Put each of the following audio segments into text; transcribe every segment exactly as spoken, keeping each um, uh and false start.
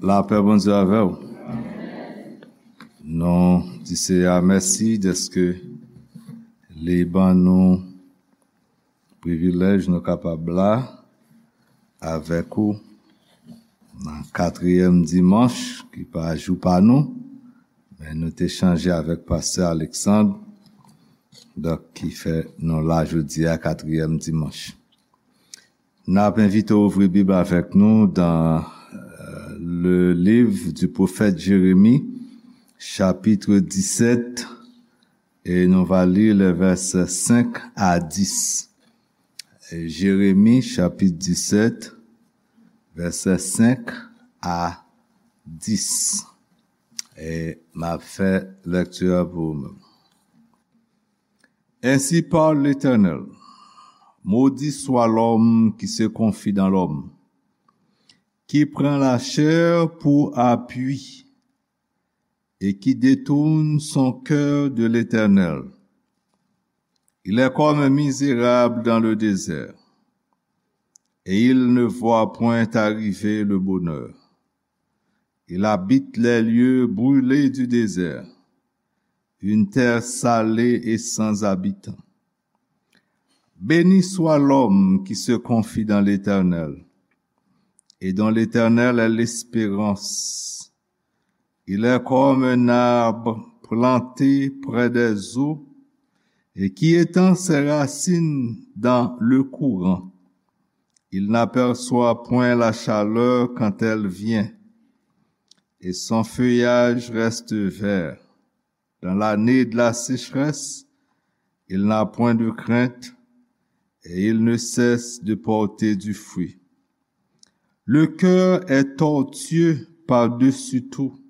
Lapè Bondye avè w. Nou di Seyè a mèsi dèske li ban nou privilèj nou kapab la avèk ou nan katriyèm dimanch ki pa jou pa nou, men nou te chanje avèk pastè Alexandre, donk ki fè nou la jodi a katriyèm dimanch. N ap envite w ouvri Bib avèk nou dans euh, le livre du prophète Jérémie, chapitre dix-sept, et nous va lire les versets cinq à dix. Jérémie, chapitre dix-sept, versets cinq à dix. E m ap fè lèkti a pou ou menm. Ainsi parle l'Éternel. Maudit soit l'homme qui se confie dans l'homme, qui prend la chair pour appui et qui détourne son cœur de l'Éternel. Il est comme un misérable dans le désert, et il ne voit point arriver le bonheur. Il habite les lieux brûlés du désert, une terre salée et sans habitant. Béni soit l'homme qui se confie dans l'Éternel, et dont l'Éternel est l'espérance. Il est comme un arbre planté près des eaux et qui étend ses racines dans le courant. Il n'aperçoit point la chaleur quand elle vient, et son feuillage reste vert. Dans l'année de la sécheresse, il n'a point de crainte, et il ne cesse de porter du fruit. Le cœur est tortueux par-dessus tout,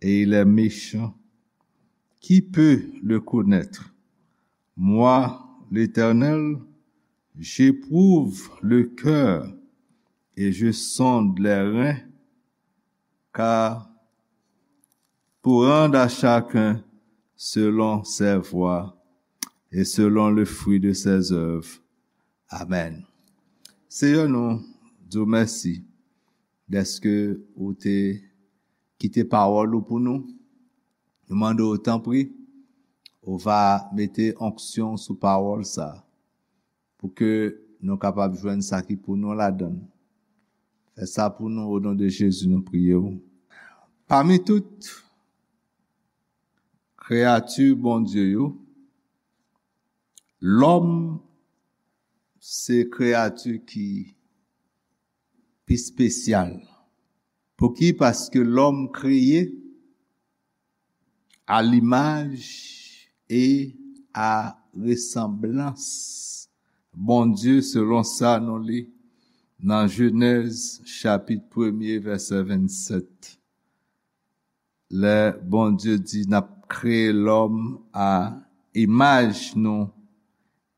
et il est méchant. Qui peut le connaître? Moi, l'Éternel, j'éprouve le cœur et je sonde les reins, car pour rendre à chacun selon ses voies et selon le fruit de ses œuvres. Amen. Seyè, nou di w mèsi dèske ou te kite pawòl ou pou nou. Nou mande w, tanpri, ou va mete onksyon sou pawòl sa a, pou ke nou kapab jwenn sa ki pou nou ladan l. Fè sa pou nou, o non de Jezi, nou priye w. Pami tout kreyati Bondye yo, lòm se kreyati ki pi espesyal. Pouki? Paske lòm kreye à l'image et à ressemblance Bondye, selon sa nou li nan Jenèz chapit premye, vèsè vennsèt. Lè Bondye di n ap kreye lòm a imaj nou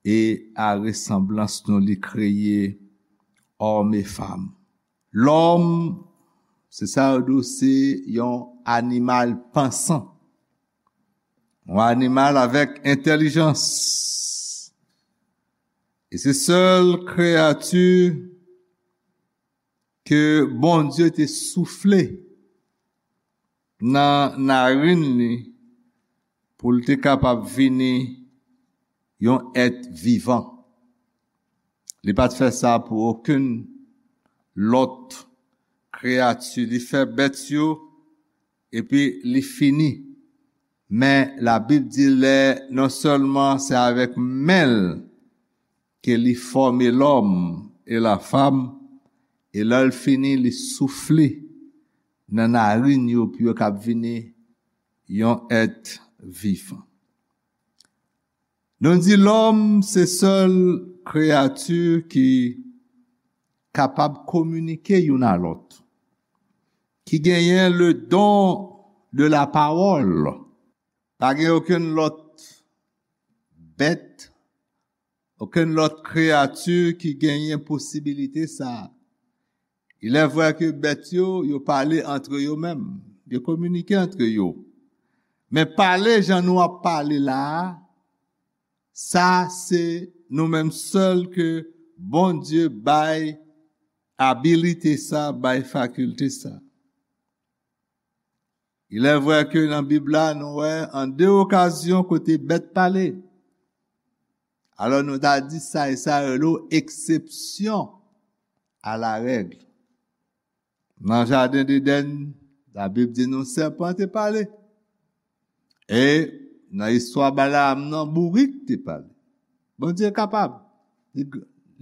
e a resanblans nou, li kreye òm e fanm. Lòm, se sa yo di w, se yon animal pansan. Yon animal avèk entèlijans. E se sèl kreyati ke Bondye te soufle nan narin li pou l te kapab vini yon èt vivan. Li pa t fè sa pou okenn lòt kreyati. Li fè bèt yo, epi li fini. Men Labib di lè, non sèlman se avèk men l ke li fòme lòm e lafanm, e lè l fini, li soufle nan narin yo pou yo kab vini yon èt vivan. Nou di lòm se sèl kreyati ki kapab kominike youn a lòt, ki genyen le don de la parole. Pa gen okenn lòt bèt, okenn lòt kreyati ki genyen posibilite sa a. Il est vrai ke bèt yo, yo pale antre yo menm, yo kominike antre yo. Men pale jan nou ap pale la a, sa se nou menm sèl ke Bondye bay abilite sa, bay fakilte sa. Il est vrai ke nan Bib la, nou wè an de okazyon kote bèt pale. Alò, nou ta di sa e sa rele w eksepsyon a la règ. Nan jaden Edenn, Labib di nou sèpan te pale. E nan istwa Balaam nan, bourik te pale. Bondye kapab. Li,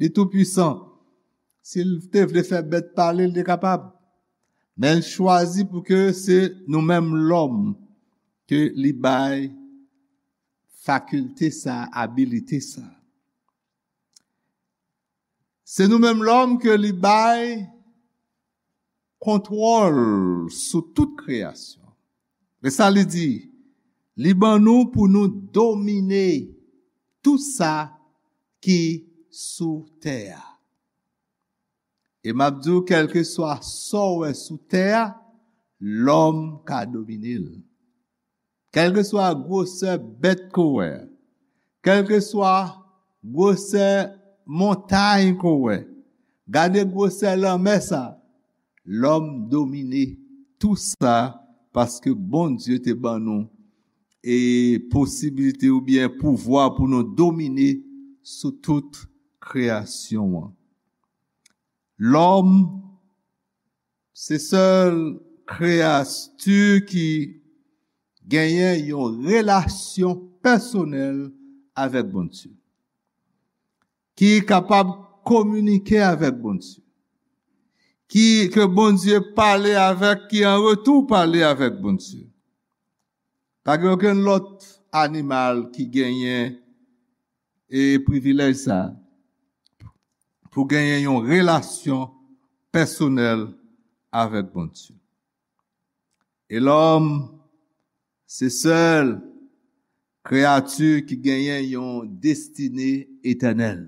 li toupwisan. Si l te vle fè bèt pale, li te kapab. Men l chwazi pou ke se nou menm lòm ke li bay fakilte sa, abilite sa. Se nou menm lòm ke li bay kontwòl sou tout kreyasyon. E sa li di, li ban nou pou nou domine tou sa ki sou tè a. E m ap di w, kèlkeswa sa w wè sou tè a, lòm ka domine l. Kèlkeswa gwosè bèt ke w wè, kèlkeswa gwosè montay ke w wè, gade gwosè lanmè sa, lòm domine tou sa, paske Bondye te ban nou e posibilite oubyen pouvwa pou nou domine sou tout kreyasyon an. Lòm se sèl kreyati ki genyen yon relasyon pèsonèl avèk Bondye, ki kapab kominike avèk Bondye, ki, ke Bondye pale avèk, ki an retou pale avèk Bondye. Pa gen okenn lòt animal ki genyen e privilèj sa a, pou genyen yon relasyon pèsonèl avèk Bondye. E lòm, se sèl kreyati ki genyen yon destine etènèl,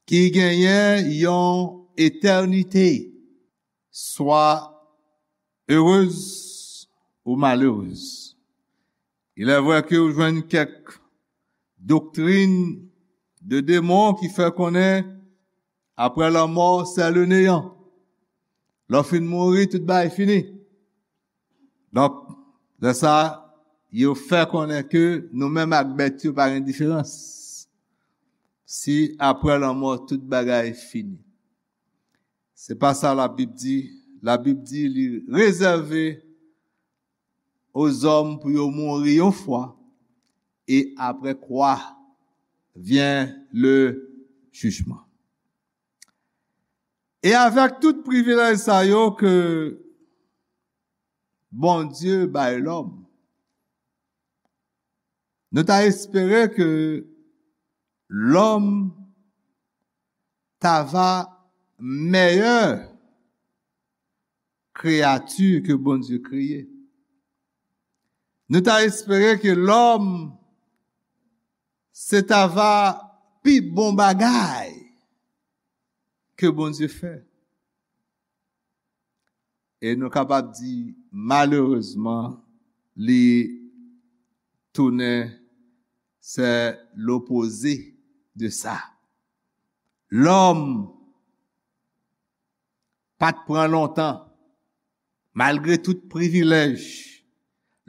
ki genyen yon etènite, swa erez ou malerez. Il est vrai ke w jwenn kèk doktrin de demon ki fè konnen apre lanmò, c'est le néant. Lè w fin mouri, tout bagay fini. Donk, lè sa, yo fè konnen ke nou menm ak bèt yo pa gen diferans. Si apre lanmò, tout bagay fini. Se pa sa Labib di. Labib di li rezève ozòm pou yo mouri yon fwa, e apre kwa, vyen le jijman. E avèk tout privilèj sa yo ke Bondye bay lòm, nou ta espere ke lòm ta va mèyè kreyati ke Bondye kreye. Nou ta espere ke lòm se ta va pi bon bagay ke Bondye fè. E nou kapab di, malerezman, li tounen se lopoze de sa. Lòm pa t pran lontan, malgre tout privilèj,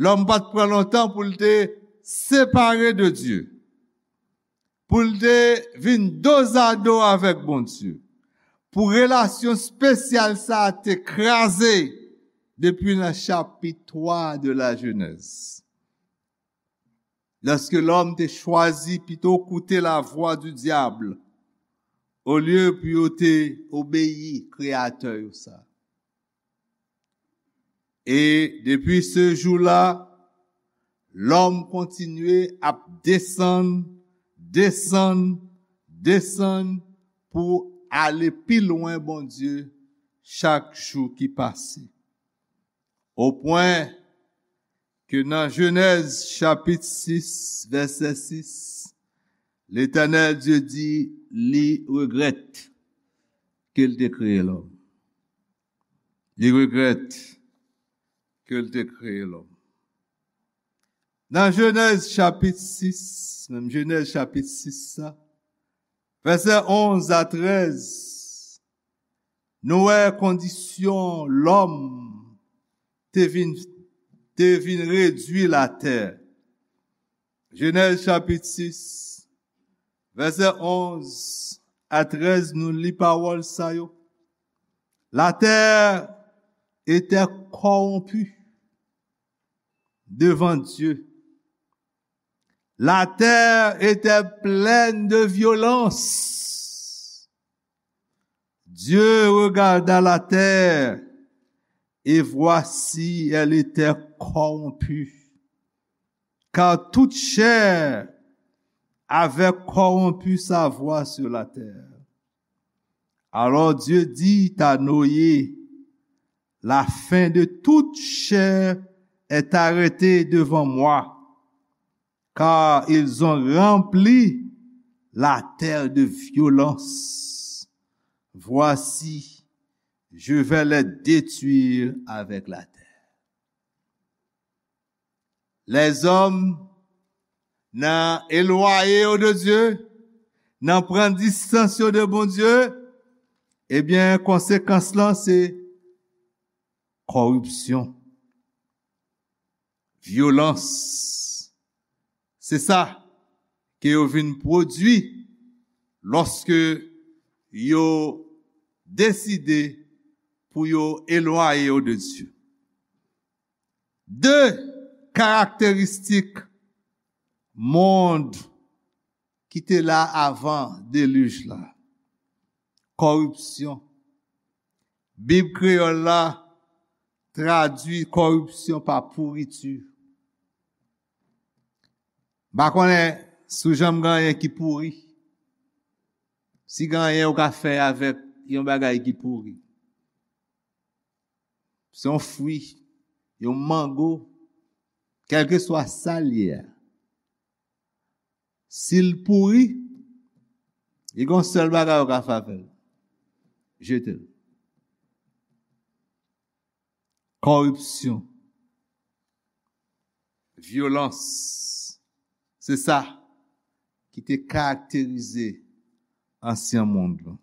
lòm pa t pran lontan pou l te separe de Dye, pou l te vin dozado avèk Bondye, pou relasyon espesyal sa a te kraze depi nan chapit twa de la Jenèz. Lòske lòm te chwazi pito koute lavwa di dyab, olye pou yo te obeyi Kreyatè yo sa. E depi se jou la, lòm kontinye ap desann, desann, desann pou ale pi lwen Bondye chak jou ki pase. O pwen ke nan Jenèz chapit sis, vèsè sis, Letènèl Dye di li regrèt ke l te kreye lòm. Li regrèt ke l te kreye lòm. Nan Jenèz chapit sis, menm Jenèz chapit sis sa, vèsè onz a trèz, nou wè kondisyon lòm te vin, te vin redwi latè. Jenèz chapit sis, vèsè onz a trèz, nou li pawòl sa yo. La terre était corrompue devant Dieu. La terre était pleine de violence. Dieu regarda la terre, et voici, elle était corrompue, car toute chair avait corrompu sa voie sur la terre. Alors Dieu dit à Noé, la fin de toute chair est arrêtée devant moi, car ils ont rempli la terre de violence. Voici, je vais les détruire avec la terre. Lèzòm nan elwaye yo de Dye, nan pran distans yo de Bondye, ebyen, konsekans lan se kòripsyon, vyolans. Se sa ke yo vin pwodui lòske yo deside pou yo elwaye yo de Dye. De karakteristik mond ki te la avan delij la. Kòripsyon. Bib kreyòl la tradui kòripsyon pa pouriti. M pa konnen si w janm gen anyen ki pouri. Si gen anyen ou ka fè avèk yon bagay ki pouri. Se yon fwi, yon mango, kèlkeswa sa l ye a. Si l pouri, li gen yon sèl bagay ou ka fè avè l. Jete l. Kòripsyon. Vyolans. Se sa ki te karakterize ansyen mond lan.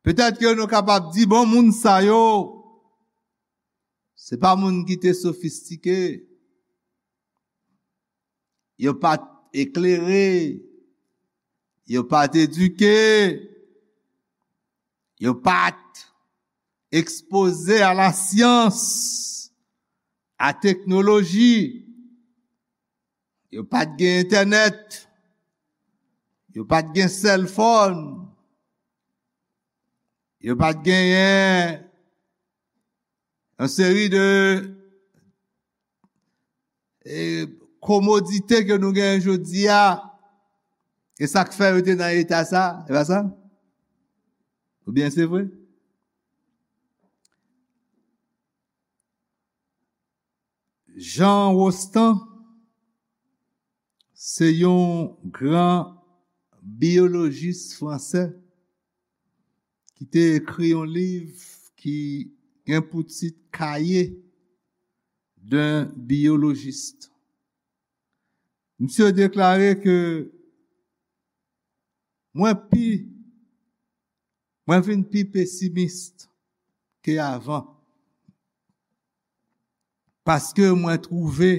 Petèt ke nou kapab di, bon, moun sa yo, se pa moun ki te sofistike, yo pa t eklere, yo pa t edike, yo pa t ekspoze a lasyans, a teknoloji, yo pa t gen entènèt, yo pa t gen sèlfòn, yo pa t genyen yon seri de, e, komodite ke nou genyen jodi a. E sa k fè yo te nan eta sa, e pa sa? Oubyen se vre? Jean Rostand se yon gran biyolojis fransè ki te ekri yon liv ki gen pou tit Cahiers d'un biologiste. Misye deklare ke mwen pi, mwen vin pi pesimis ke avan. Paske mwen twouve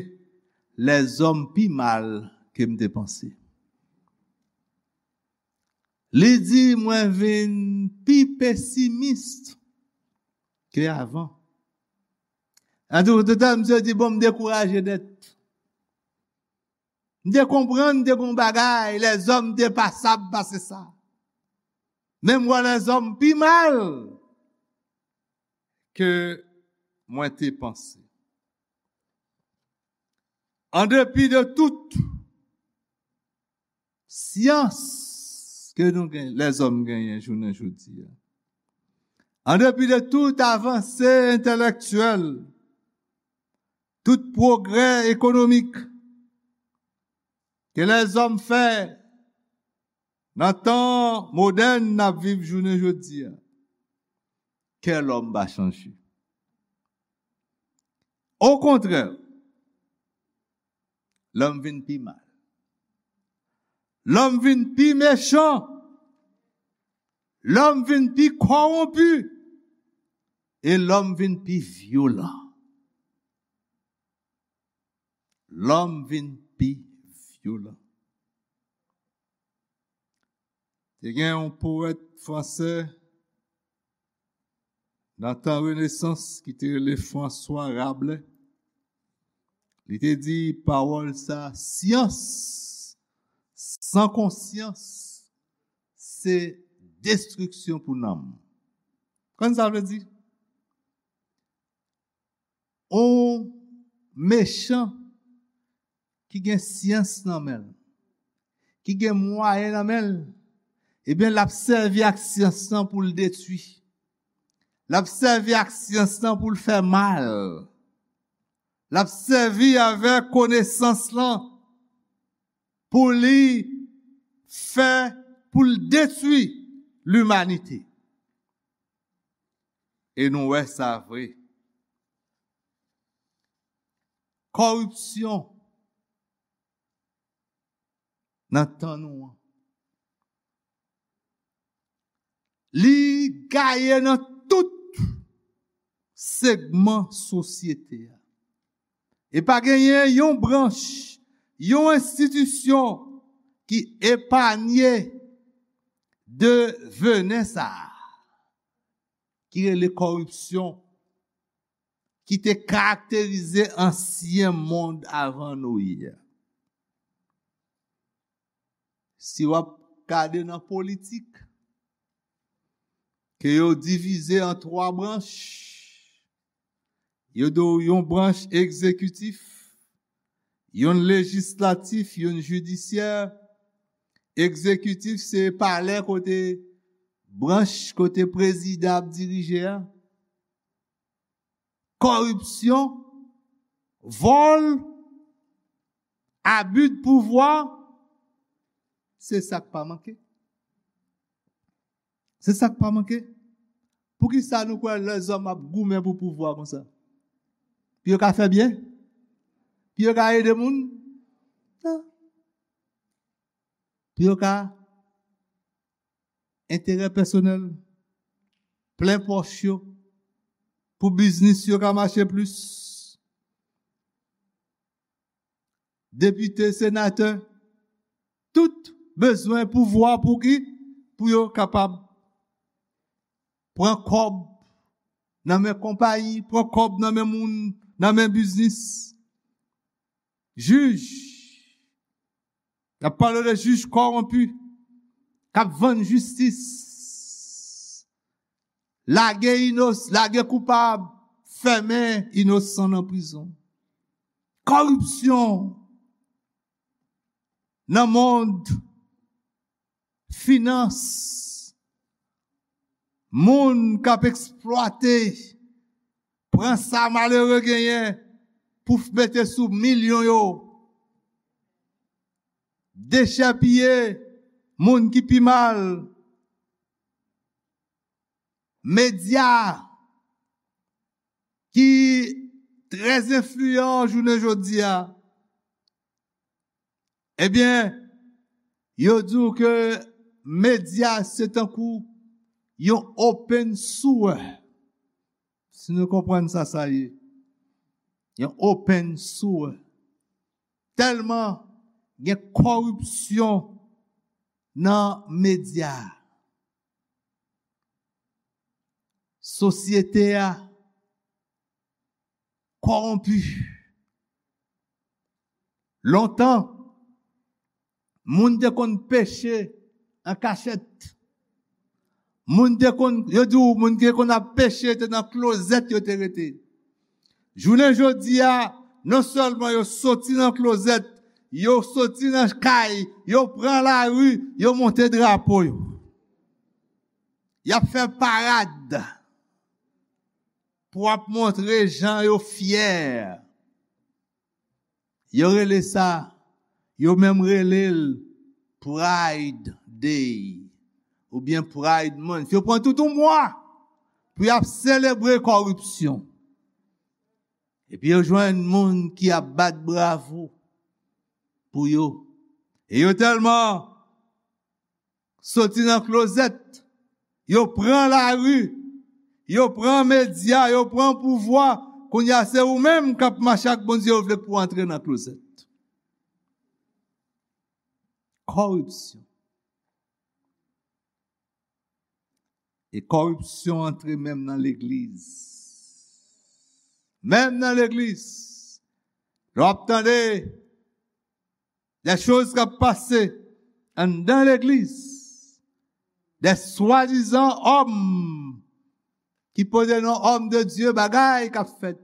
lèzòm pi mal ke m te panse. Li di mwen vin pi pesimis ke avan. An tou, toutan, misye di, bon, m dekouraje nèt. M te konprann te gon bagay, lèzòm te pasab pase sa. Men m wè lèzòm pi mal ke mwen te panse. An depi de tout syans ke nou gen, lèzòm genyen jounen jodi a, an depi de tout avanse entèlektyèl, tout pwogrè ekonomik ke lèzòm fè nan tan modèn n ap viv jounen jodi a, kè lòm pa chanje. Okontrè, lòm vin pi mal. Lòm vin pi mechan. Lòm vin pi kòwonpi. E lòm vin pi vyolan. Lòm vin pi vyolan. Te gen yon powèt fransè nan tan Renesans ki te rele François Rabelais. Li te di pawòl sa, syans san konsyans, se destriksyon pou nanm. Konn sa vle di? On mechan ki gen syans nan men l, ki gen mwayen nan men l, ebyen, l ap sèvi ak syans lan pou l detwi. L ap sèvi ak syans lan pou l fè mal. L ap sèvi avèk konesans lan pou li fè, pou l detwi limanite. E nou wè sa vre. Kòripsyon nan tan nou an. Li gaye nan tout segman sosyete a. E pa genyen yon branch, yon enstitisyon ki epanye de venen sa a, ki rele kòripsyon, ki te karakterize ansyen mond avan nou ye a. Si w ap gade nan politik, ke yo divize an twa branch, yo di w yon branch egzekitif, yon lejislatif, yon jidisyè. Egzekitif se palè kote, branch kote prezidan ap dirije a. Kòripsyon, vòl, abi de pouvwa, se sa k pa manke. Se sa k pa manke. Poukisa nou kwè lèzòm ap goumen pou pouvwa konsa? Pou yo ka fè byen? Pou yo ka ede moun? Non. Pou yo ka enterè pèsonèl, plen pòch yo, pou biznis yo ka mache plis. Depite, senatè, tout bezwen pouvwa pou ki? Pou yo kapab pran kòb nan men konpayi, pran kòb nan men moun, nan men biznis. Jij. N ap pale de jij kòwonpi k ap vann jistis. Lage inos-, lage koupab, fèmen inosan nan prizon. Kòripsyon nan mond finans, moun k ap eksplwate, pran sa malere genyen pou f-, mete sou milyon yo, dechèpiye moun ki pi mal, medya ki trè enfliyan jounen jodi a, ebyen, yo di w ke medya se tankou yon open sewer. Si nou konprann sa, sa ye. Yon open sewer. Tèlman gen kòripsyon nan medya. Sosyete a kòwonpi. Lontan, moun te konn peche an kachèt. Moun te konn, yo di w, moun ki te konn ap peche te nan klozèt yo te rete. Jounen jodi a, non sèlman yo soti nan klozèt, yo soti nan kay, yo pran lari, yo monte drapo yo. Y ap fè parad pou ap montre jan yo fyè. Yo rele sa, yo menm rele l Pride Day oubyen Pride Month. Yo pran tout yon mwa pou y ap selebre kòripsyon. Epi yo jwenn moun ki ap bat bravo pou yo. E yo tèlman soti nan klozèt, yo pran lari, Yo pran medya, yo pran pouvwa. Kounye a, se ou menm k ap mache ak Bondye, yo vle pou w antre nan klozèt. Kòripsyon. E kòripsyon antre menm nan legliz. Menm nan legliz. Lè w ap tande de choz k ap pase anndan legliz, de swadizan òm ki pote non òm de Dye, bagay k ap fèt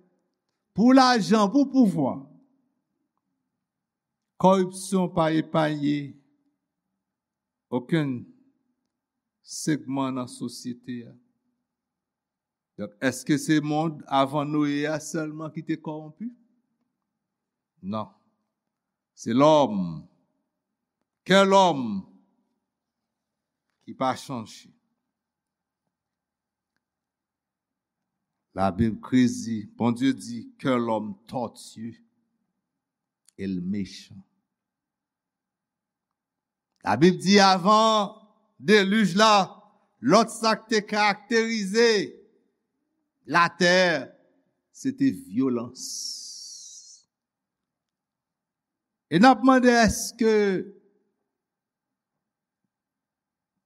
pou lajan, pou pouvwa. Kòripsyon pa epanye okenn segman nan sosyete a. Donk, èske se mond avan Noye a sèlman ki te kòwonpi? Non. Se lòm. Kè lòm ki pa chanje. Labib Kris di, Bondye di, kè lòm tòtye e l mechan. Labib di avan delij la, lòt sa k te karakterize latè, se te vyolans. E n ap mande èske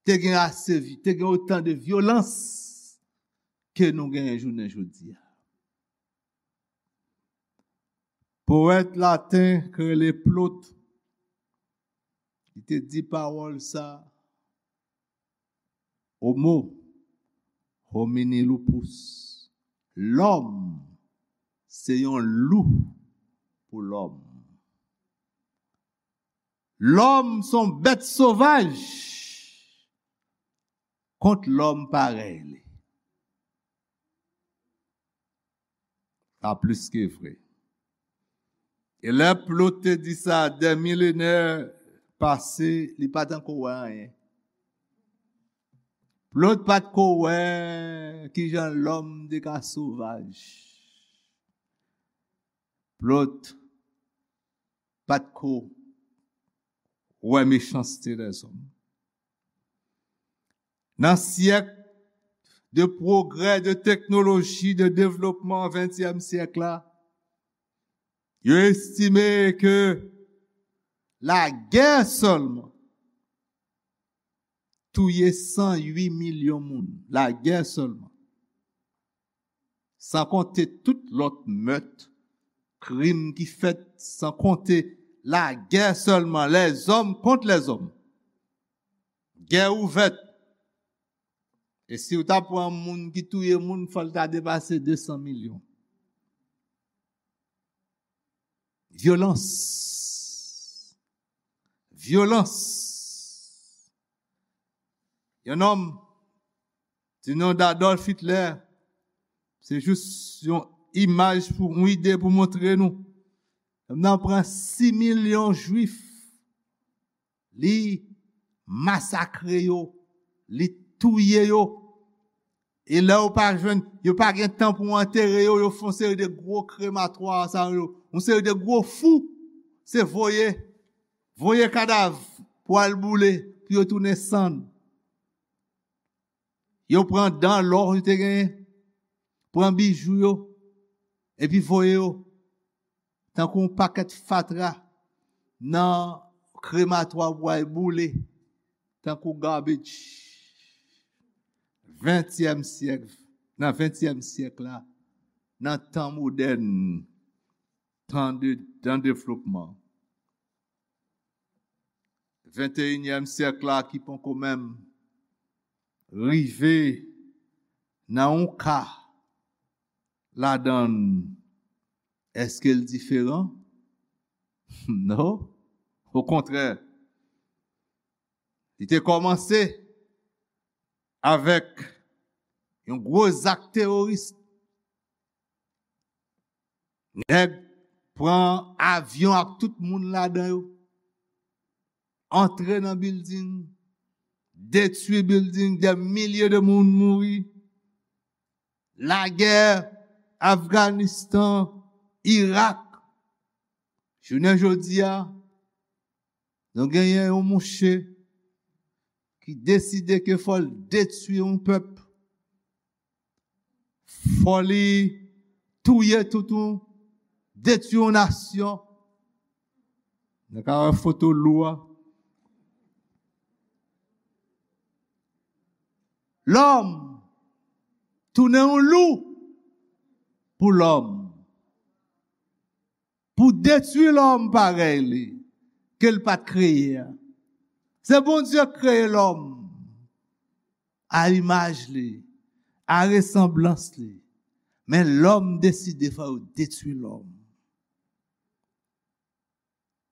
te gen ase, te gen otan de vyolans ke nou genyen jounen jodi a. Powèt laten k rele Plot, li te di pawòl sa, Homo homini lupus. Lòm se yon lou pou lòm. Lòm se yon bèt sovaj kont lòm parèy li. Sa plis ke vre. E lè Plot te di sa, dè milenè pase, li pa t ankò wè anyen. Plot pa t ko wè kijan lòm te ka sovaj. Plot pa t ko wè mechanste lèzòm. Nan syèk de pwogrè, de teknoloji, de devlopman ventyèm syèk la, yo estime ke lagè sèlman touye san uit milyon moun. Lagè sèlman. San konte tout lòt mèt, krim ki fèt, san konte lagè sèlman, lèzòm kont lèzòm. Gè ouvèt. E si w ta pran moun ki touye moun, fò l ta depase de san milyon. Vyolans. Vyolans. Yon nonm di non d Adolf Hitler, se jis yon imaj pou yon ide pou montre nou. Nonm nan pran sis milyon jwif, li masakre yo, li touye yo. E lè yo pa jwenn, yo pa gen tan pou antere yo, yo fè yon seri de gwo krematwa, sa yo, yon seri de gwo fou, se voye, voye kadav pou al boule, pou yo tounen sann. Yo pran dan lò yo te genyen, pran bijou yo, epi voye yo tankou yon pakèt fatra nan krematwa pou al boule, tankou garbage. Ventyèm syèk, nan ventyèm syèk la, nan tan modèn, tan de, tan devlopman. Venteyinyèm syèk la ki poko menm rive nan yon ka ladan l, èske l diferan? Non. Okontrè, li te kòmanse avèk yon gwo zak teworis. Nèg pran avyon ak tout moun ladan yo, antre nan bilding, detwi bilding, dè milye de moun mouri. Lagè Afganistan, Irak. Jounen jodi a, nou genyen yon mouche ki deside ke fò l detwi yon pèp. Fò li touye tout yon, detwi yon nasyon. Nou ka wè foto lou a. Lòm tounen yon lou pou lòm. Pou detwi lòm parèy li, ke l pa t kreye a. Se Bondye k kreye lòm a imaj li, a resanblans li. Men lòm deside fò yo detwi lòm.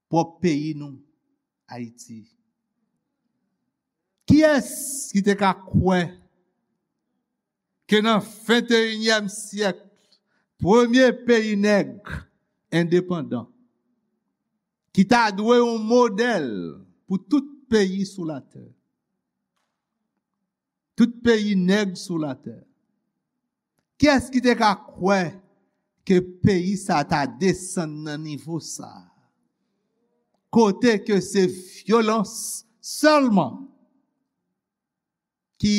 Pwòp peyi nou, Ayiti. Kiyès ki te ka kwè ke nan venteyinyèm syèk, premye peyi nèg endepandan, ki ta dwe yon modèl pou tout peyi sou latè, tout peyi nèg sou latè, kiyès ki te ka kwè ke peyi sa ta desann nan nivo sa? Kote ke se vyolans sèlman ki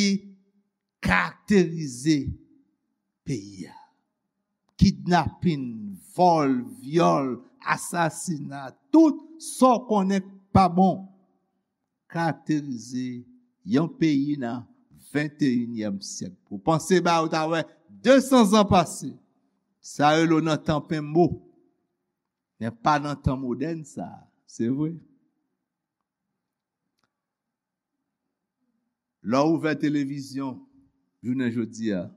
karakterize peyi a. Kidnapin, vòl, vyòl, asasina, tout sa w konnen k pa bon karakterize yon peyi nan venteyinyèm syèk. Ou panse ba ou ta wè de san zan pase, sa rele w nan tan penbo, men pa nan tan modèn sa, se vre. Lè w ouvè televizyon jounen jodi a,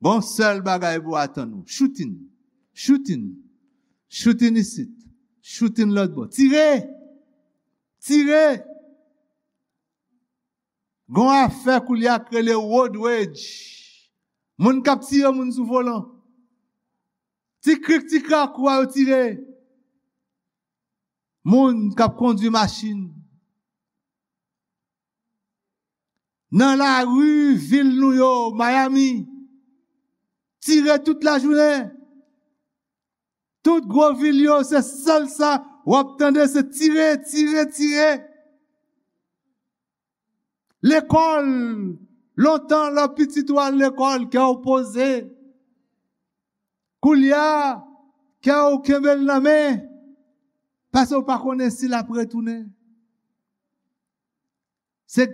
gon sèl bagay pou atann ou. Shooting. Shooting. Shooting isit. Shooting lòt bò. Tire! Tire! Gon afè koulye a k rele road rage. Moun k ap tire moun sou volan. Ti krik, ti krak, ou a yo tire. Moun k ap kondui machin. Nan lari vil nou yo, Miami, tire tout lajounen. Tout gwo vil yo, se sèl sa w ap tande, se tire, tire, tire. Lekòl, lontan lè w pitit ou al lekòl, kè w poze. Koulye a, kè w kenbe l nan men, paske w pa konnen si l ap retounen. Se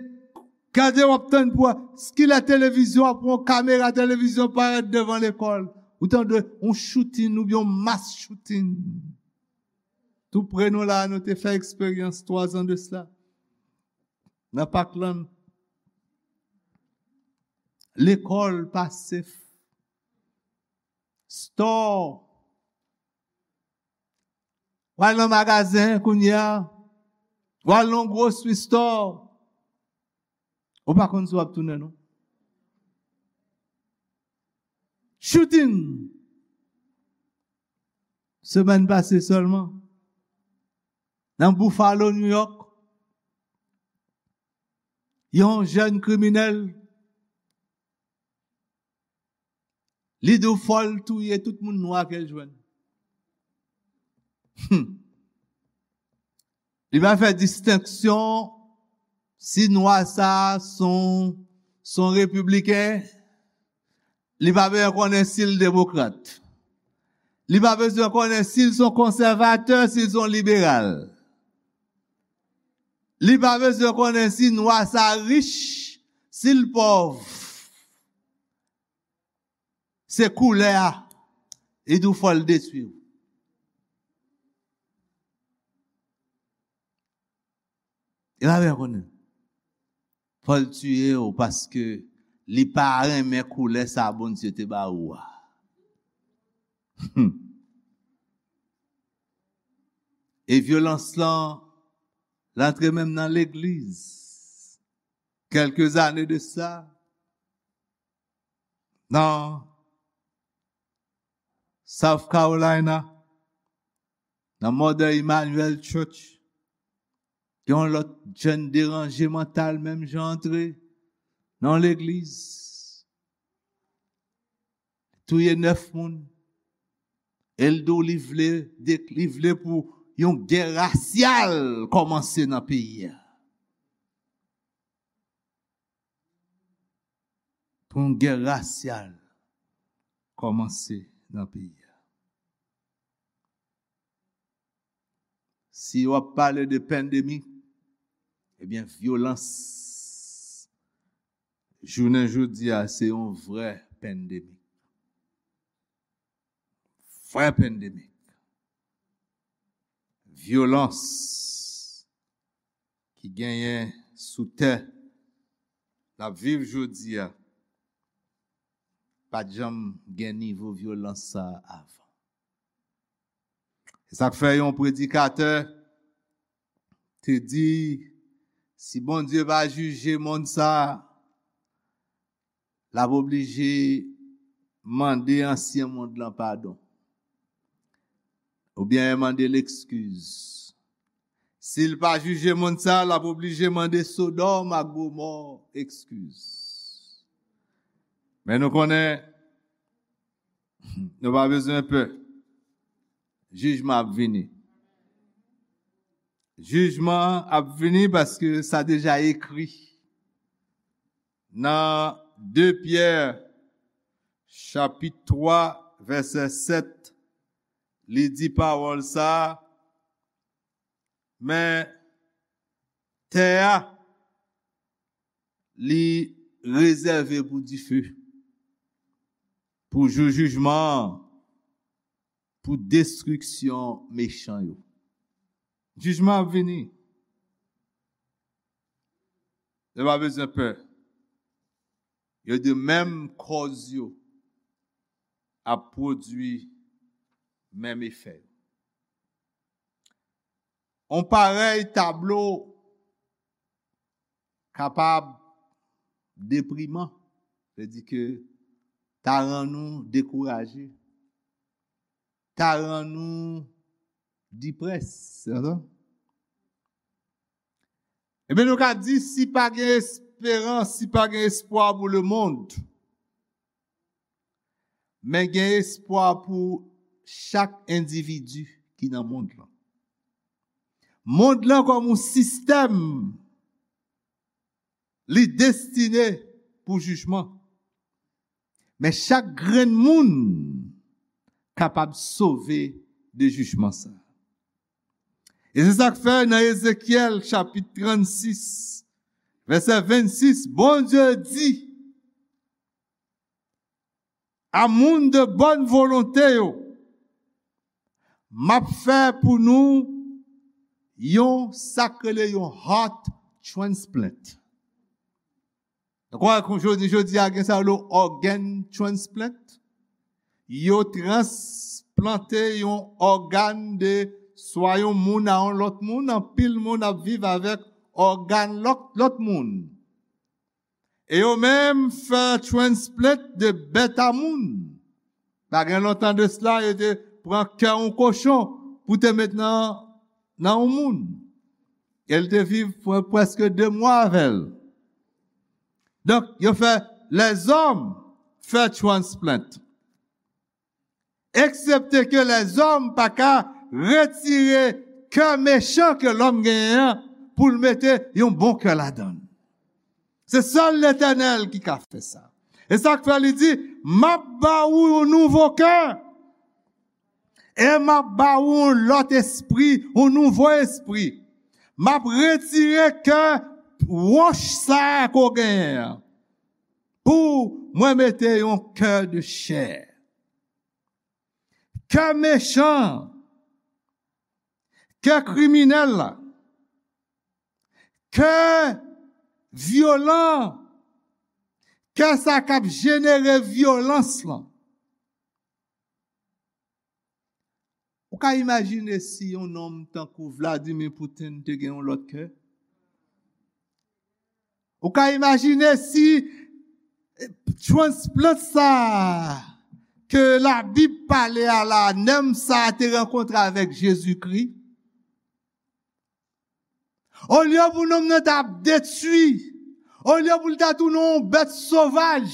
gade w ap tann pou wè kilè televizyon ap yon kamera televizyon parèt devan lekòl. Ou tande yon shooting oubyen yon mass shooting. Tou pre nou la, nou te fè eksperyans twa zan de sila. Nan Parkland, lekòl pa safe. Store. W al nan magazen kounye a. W al nan grocery store. Ou pa konn si w ap tounen, non. Shooting. Semèn pase sèlman, nan Buffalo, New York, yon jèn kriminèl, li di w fò l touye tout moun nwa ke l jwenn. Hmm. Li pa fè distenksyon si nwa sa a son, son repibliken, li pa bezwen konnen si l demokrat. Li pa bezwen konnen si l son konsèvatè, si l son liberal. Li pa bezwen konnen si nwa sa a rich, si l pòv. Se koulè a. Li di w fò l detwi w. Li pa bezwen konnen. Fò l tiye w paske li pa renmen koulè sa Bondye te ba ou a. Hmm. E vyolans lan, l antre menm nan legliz. Kèlke zane de sa, nan South Carolina, nan Mother Emanuel Church, yon lòt jèn deranje mantal menm jan antre nan legliz, touye nèf moun, e l di w li vle, li vle pou yon gè rasyal kòmanse nan peyi a. Yon gè rasyal kòmanse nan peyi a. Si w ap pale de pandemik, ebyen, vyolans jounen jodi a se yon vrè pandemik. Vrè pandemik. Vyolans ki genyen sou tè n ap viv jodi a, pa t janm gen nivo vyolans sa a avan. Se sa k fè yon predikatè te di, si Bondye pa jije monn sa a, l ap oblije mande ansyen mond lan padon. Oubyen mande l ekskiz. Si l pa jije monn sa a, l ap oblije mande Sodòm ak Gomò ekskiz. Men nou konnen, nou pa bezwen pè. Jijman ap vini. Jijman ap vini paske sa deja ekri. Nan de Pyè, chapit twa, vèsè sèt, li di pawòl sa a, men tè a, li rezève pou dife, pou jou jijman an, pou destriksyon mechan yo. Jijman ap vini. Nou pa bezwen pè. Yo de menm kòz yo ap pwodui menm efè yo. On parèy tablo kapab depriman, vle di ke ta rann nou dekouraje, ta rann nou diprès, se sa? Ebyen, nou ka di, si pa gen esperans, si pa gen espwa pou lemonn, men gen espwa pou chak endividi ki nan monn lan. Monn lan kòm yon sistèm, li destine pou jijman. Men chak grenn moun kapab sove de jijman sa a. E se sa k fè nan Ezekyèl chapit trannsis, vèsè vennsis, Bondye di a moun de bòn volonte yo, m ap fè pou nou yon sa k rele yon heart transplant. Donk, jodi, jodi a gen sa yo rele organ transplant. Yo transplante yon ògàn de swa yon moun a yon lòt moun, anpil moun ap viv avèk ògàn lòt, lòt moun. E yo menm fè transplant de bèt a moun. Pa gen lontan de sila, yo te pran kè yon kochon pou te met nan, nan yon moun. E l te viv pre-, prèske de mwa avè l. Donk, yo fè lèzòm fè transplant. Eksepte ke lèzòm pa ka retire kè mechan ke lòm genyen an pou l mete yon bon kè ladan l. Se sèl Letènèl ki ka fè sa. E sa k fè li di, m ap ba ou yon nouvo kè. E m ap ba ou yon lòt espri, yon nouvo espri. M ap retire kè wòch sa a ke w genyen an. Pou mwen mete yon kè de chè. Kè mechan, kè kriminèl la, kè vyolan, kè sa k ap jenere vyolans lan. Ou ka imajine si yon nonm tankou Vladimir Putin te gen yon lòt kè? Ou ka imajine si, eh, transplant sa a ke Labib pale a la, nonm sa a te rankontre avèk Jezikri? Olye pou nonm nan t ap detwi, olye pou l ta tounen yon bèt sovaj,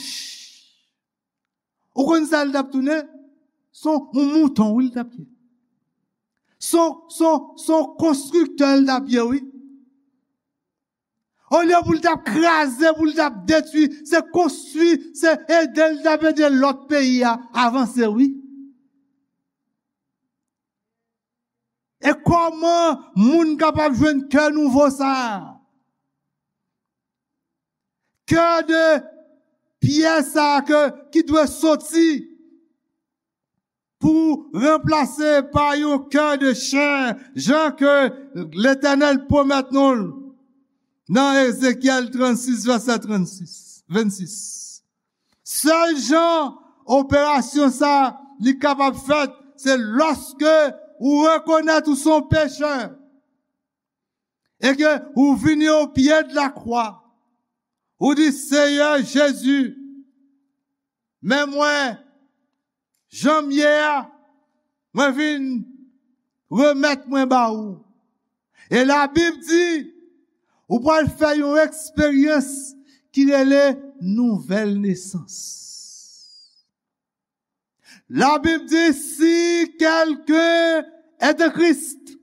ou konn sa l t ap tounen? Se yon mouton, wi, l t ap ye. Se yon, se yon, se yon konstriktè l t ap ye, wi. Olye pou l t ap kraze, pou l t ap detwi, se konstwi, se ede l t ap ede lòt peyi a avanse, wi. E kòman moun kapab jwenn kè nouvo sa a? Kè de pyè sa a ke, ki dwe soti pou ranplase pa yon kè de chè, jan ke Letènèl pwomèt nou l nan Ezekyèl trannsis, vèsè trannsis, vennsis. Sèl jan operasyon sa a li kapab fèt, se lòske ou rekonèt ou se yon pechè e ke ou vini o pye de la kwa, ou di, Seyè Jezi, men mwen, jan m ye a, mwen vin remèt mwen ba ou. E Labib di, ou pral fè yon eksperyans ki rele nouvèl nesans. Labib di, si quelqu'un est en Christ,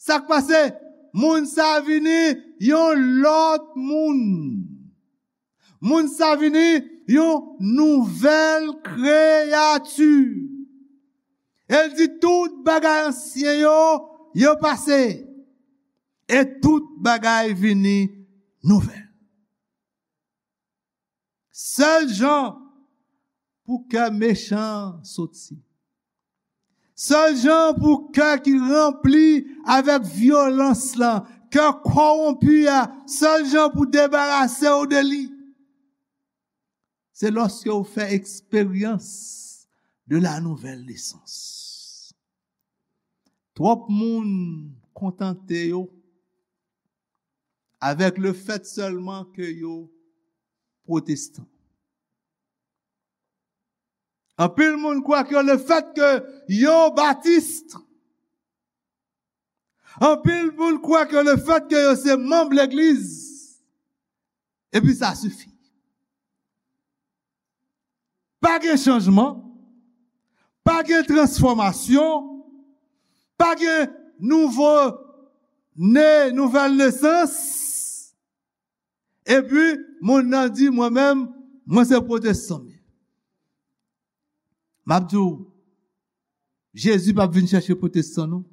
sa k pase? Moun sa vini yon lòt moun. Moun sa vini yon nouvèl kreyati. E l di, tout bagay ansyen yo, yo pase. E tout bagay vini nouvèl. Sèl jan pou kè mechan soti. Sèl jan pou kè ki ranpli avèk vyolans lan, kè kòwonpi a, sèl jan pou debarase w de li, se lòske w fè eksperyans de la nouvèl nesans. Twòp moun kontante yo avèk le fèt sèlman ke yo pwotestan. Anpil moun kwè ke le fèt ke yo batis, anpil moun kwè ke le fèt ke yo se manm legliz, epi sa sifi. Pa gen chanjman, pa gen transfòmasyon, pa gen nouvo ne, nouvèl nesans. Epi, moun nan di, mwen menm, mwen se pwotestan m ye. M ap di w, Jezi p ap vin chèche pwotestan, non.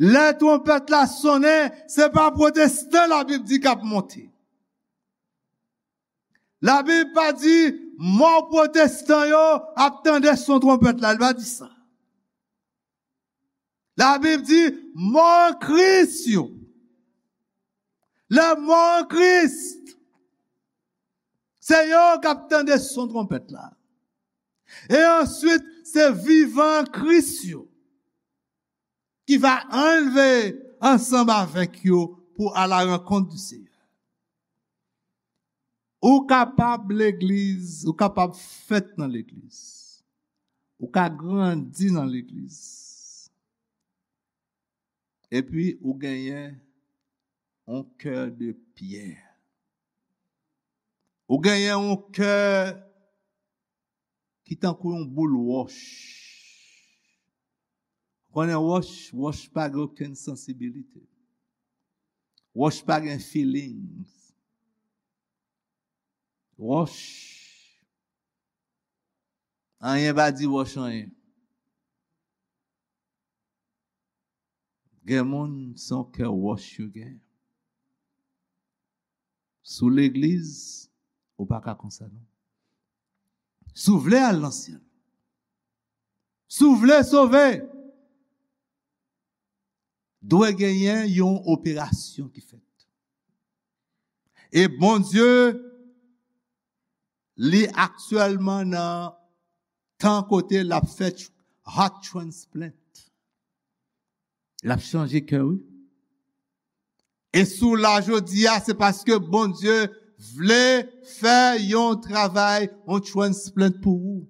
Lè twonpèt la sonnen, se pa pwotestan Labib di k ap monte. Labib pa di, mò pwotestan yo ap tande son twonpèt la. Li pa di sa. Labib di, mò an Kris yo. Lè mò an Kris, se yo k ap tande son twonpèt la. E answit, se vivan an Kris yo ki va anlve ansanm avèk yo pou à la rencontre du Seigneur. Ou kapab legliz, ou kapab fèt nan legliz. Ou ka grandi nan legliz. Epi ou genyen yon kè de pyè. Ou genyen yon kè ki tankou yon boul wòch. Konnen wòch, wòch pa gen okenn sansibilite. Wòch pa gen feelings. Wòch, anyen pa di wòch anyen. Gen moun, se yon kè wòch yo gen. Si w legliz, ou pa ka konsa non. Si w vle al nan syèl, si w vle sove, dwe genyen yon operasyon ki fèt. E Bondye, li aktyèlman nan tan kote l ap fè tr-, heart transplant. L ap chanje kè, wi. E si w la jodi a, se paske Bondye vle fè yon travay, yon transplant pou ou.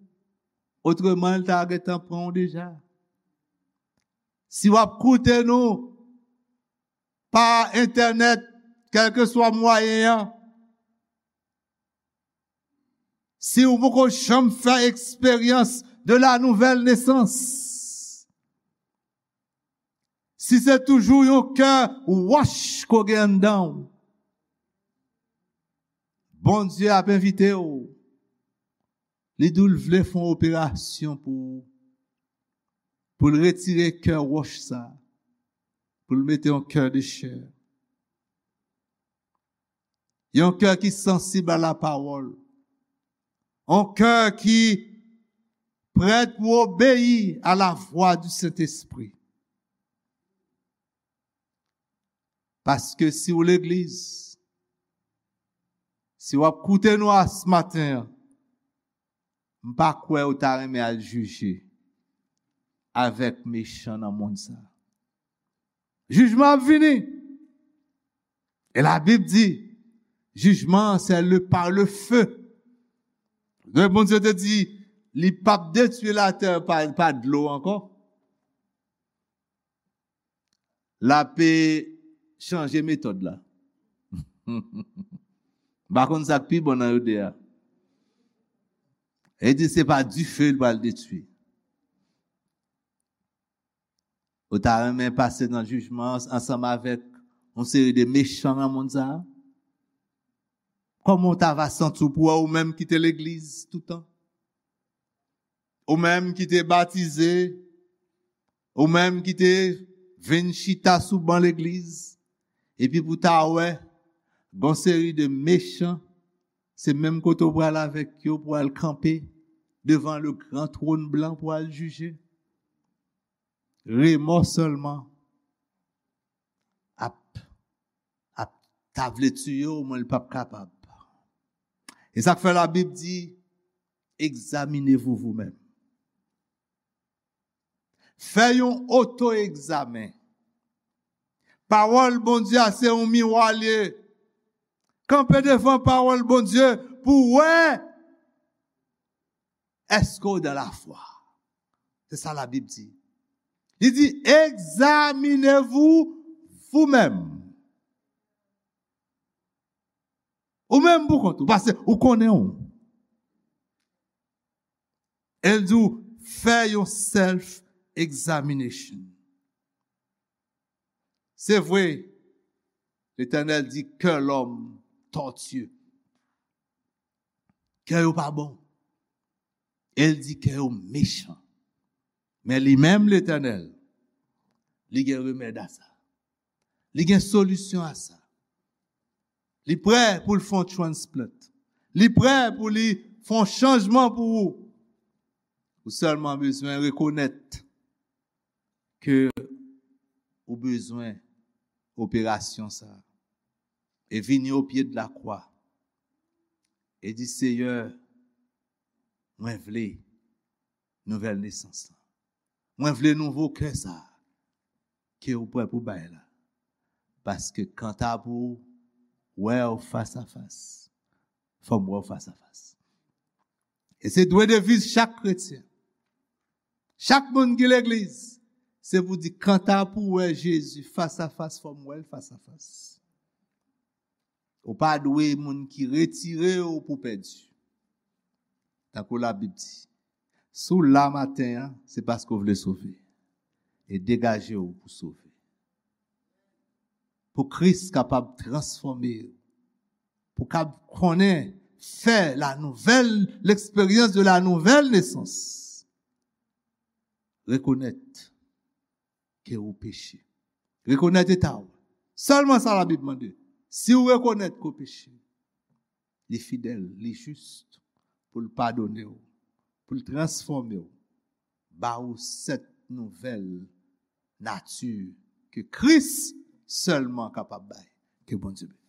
Otreman, l ta gentan pran w deja. Si w ap koute nou pa entènèt, kèlkeswa mwayen an, si w poko janm fè eksperyans de la nouvèl nesans, Si se toujou yon kè wòch ke w gen anndan w, Bondye ap envite w. Li di w l vle fè yon operasyon pou ou, pou l retire kè wòch sa, pou l mete yon kè de chè. Yon kè ki sansib a la pawòl. Yon kè ki prèt pou obeyi a la vwa di Sentespri. Paske si w legliz, si w ap koute nou a s maten an, m pa kwè ou ta renmen al jije avèk mechan nan mond sa. Jijman ap vini. E Labib di, jijman an, se le, par le feu. Donk, Bondye te di, li p ap detwi latè pa, pa dlo ankò. L ap chanje metòd la. M pa konn sa k pi bon nan yo de a. E di se pa dife l pral detwi. Ou ta renmen pase nan jijman an ansanm avèk yon seri de mechan nan mond sa a? Kòman w ta va santi w pou wè ou menm ki te legliz toutan? Ou menm ki te batize, ou menm ki te vin chita sou ban legliz, epi pou ta wè, gon seri de mechan, se menm kote w pral avèk yo pou al kanpe devan le gran twòn blan pou al jije. Remò sèlman ap, ap ta vle tiye w, men l p ap kapab. E sa k fè Labib di, egzaminez-vous vous-même. Fè yon oto-egzamen. Pawòl Bondye a se yon miwa l ye. Kanpe devan pawòl Bondye pou w wè èske w dan lafwa. Se sa Labib di. Li di, egzaminez-vous vous-même. Ou menm pou kont ou, paske ou konnen w. El di w fè yon self examination. Se vre, Letènèl di kè lòm tòtye. Kè yo pa bon. El di kè yo mechan. Men li menm, Letènèl, li gen remèd a sa. Li gen solisyon a sa. Li prè pou l fè yon transplant. Li prè pou li fè yon chanjman pou ou. Ou sèlman bezwen rekonèt ke ou bezwen operasyon sa a. E vini o pye de la kwa. E di, Seyè, mwen vle nouvèl nesans lan. Mwen vle nouvo kè sa a ke ou prè pou bay la. Paske kanta pou wè w fas a fas, fò m wè w fas a fas. E se dwe deviz chak kretyen. Chak moun ki legliz, se pou di, kanta pou wè Jezi fas a fas, fò m wè l fas a fas. Ou pa dwe moun ki retire w pou pèdi. Tankou Labib di, si w la maten an, se paske w vle sove. E degaje w pou sove. Pou Kris kapab transfòme w. Pou kab konnen, fè la nouvèl, l'expérience de la nouvelle naissance. Rekonèt ke ou peche. Rekonèt eta w. Sèlman sa Labib mande. Si w rekonèt ke w peche, li fidèl, li jis pou l padone w, pou l transfòme w, ba ou sèt nouvèl nati ke Kris sèlman kapab bay. Ke Bondye beni.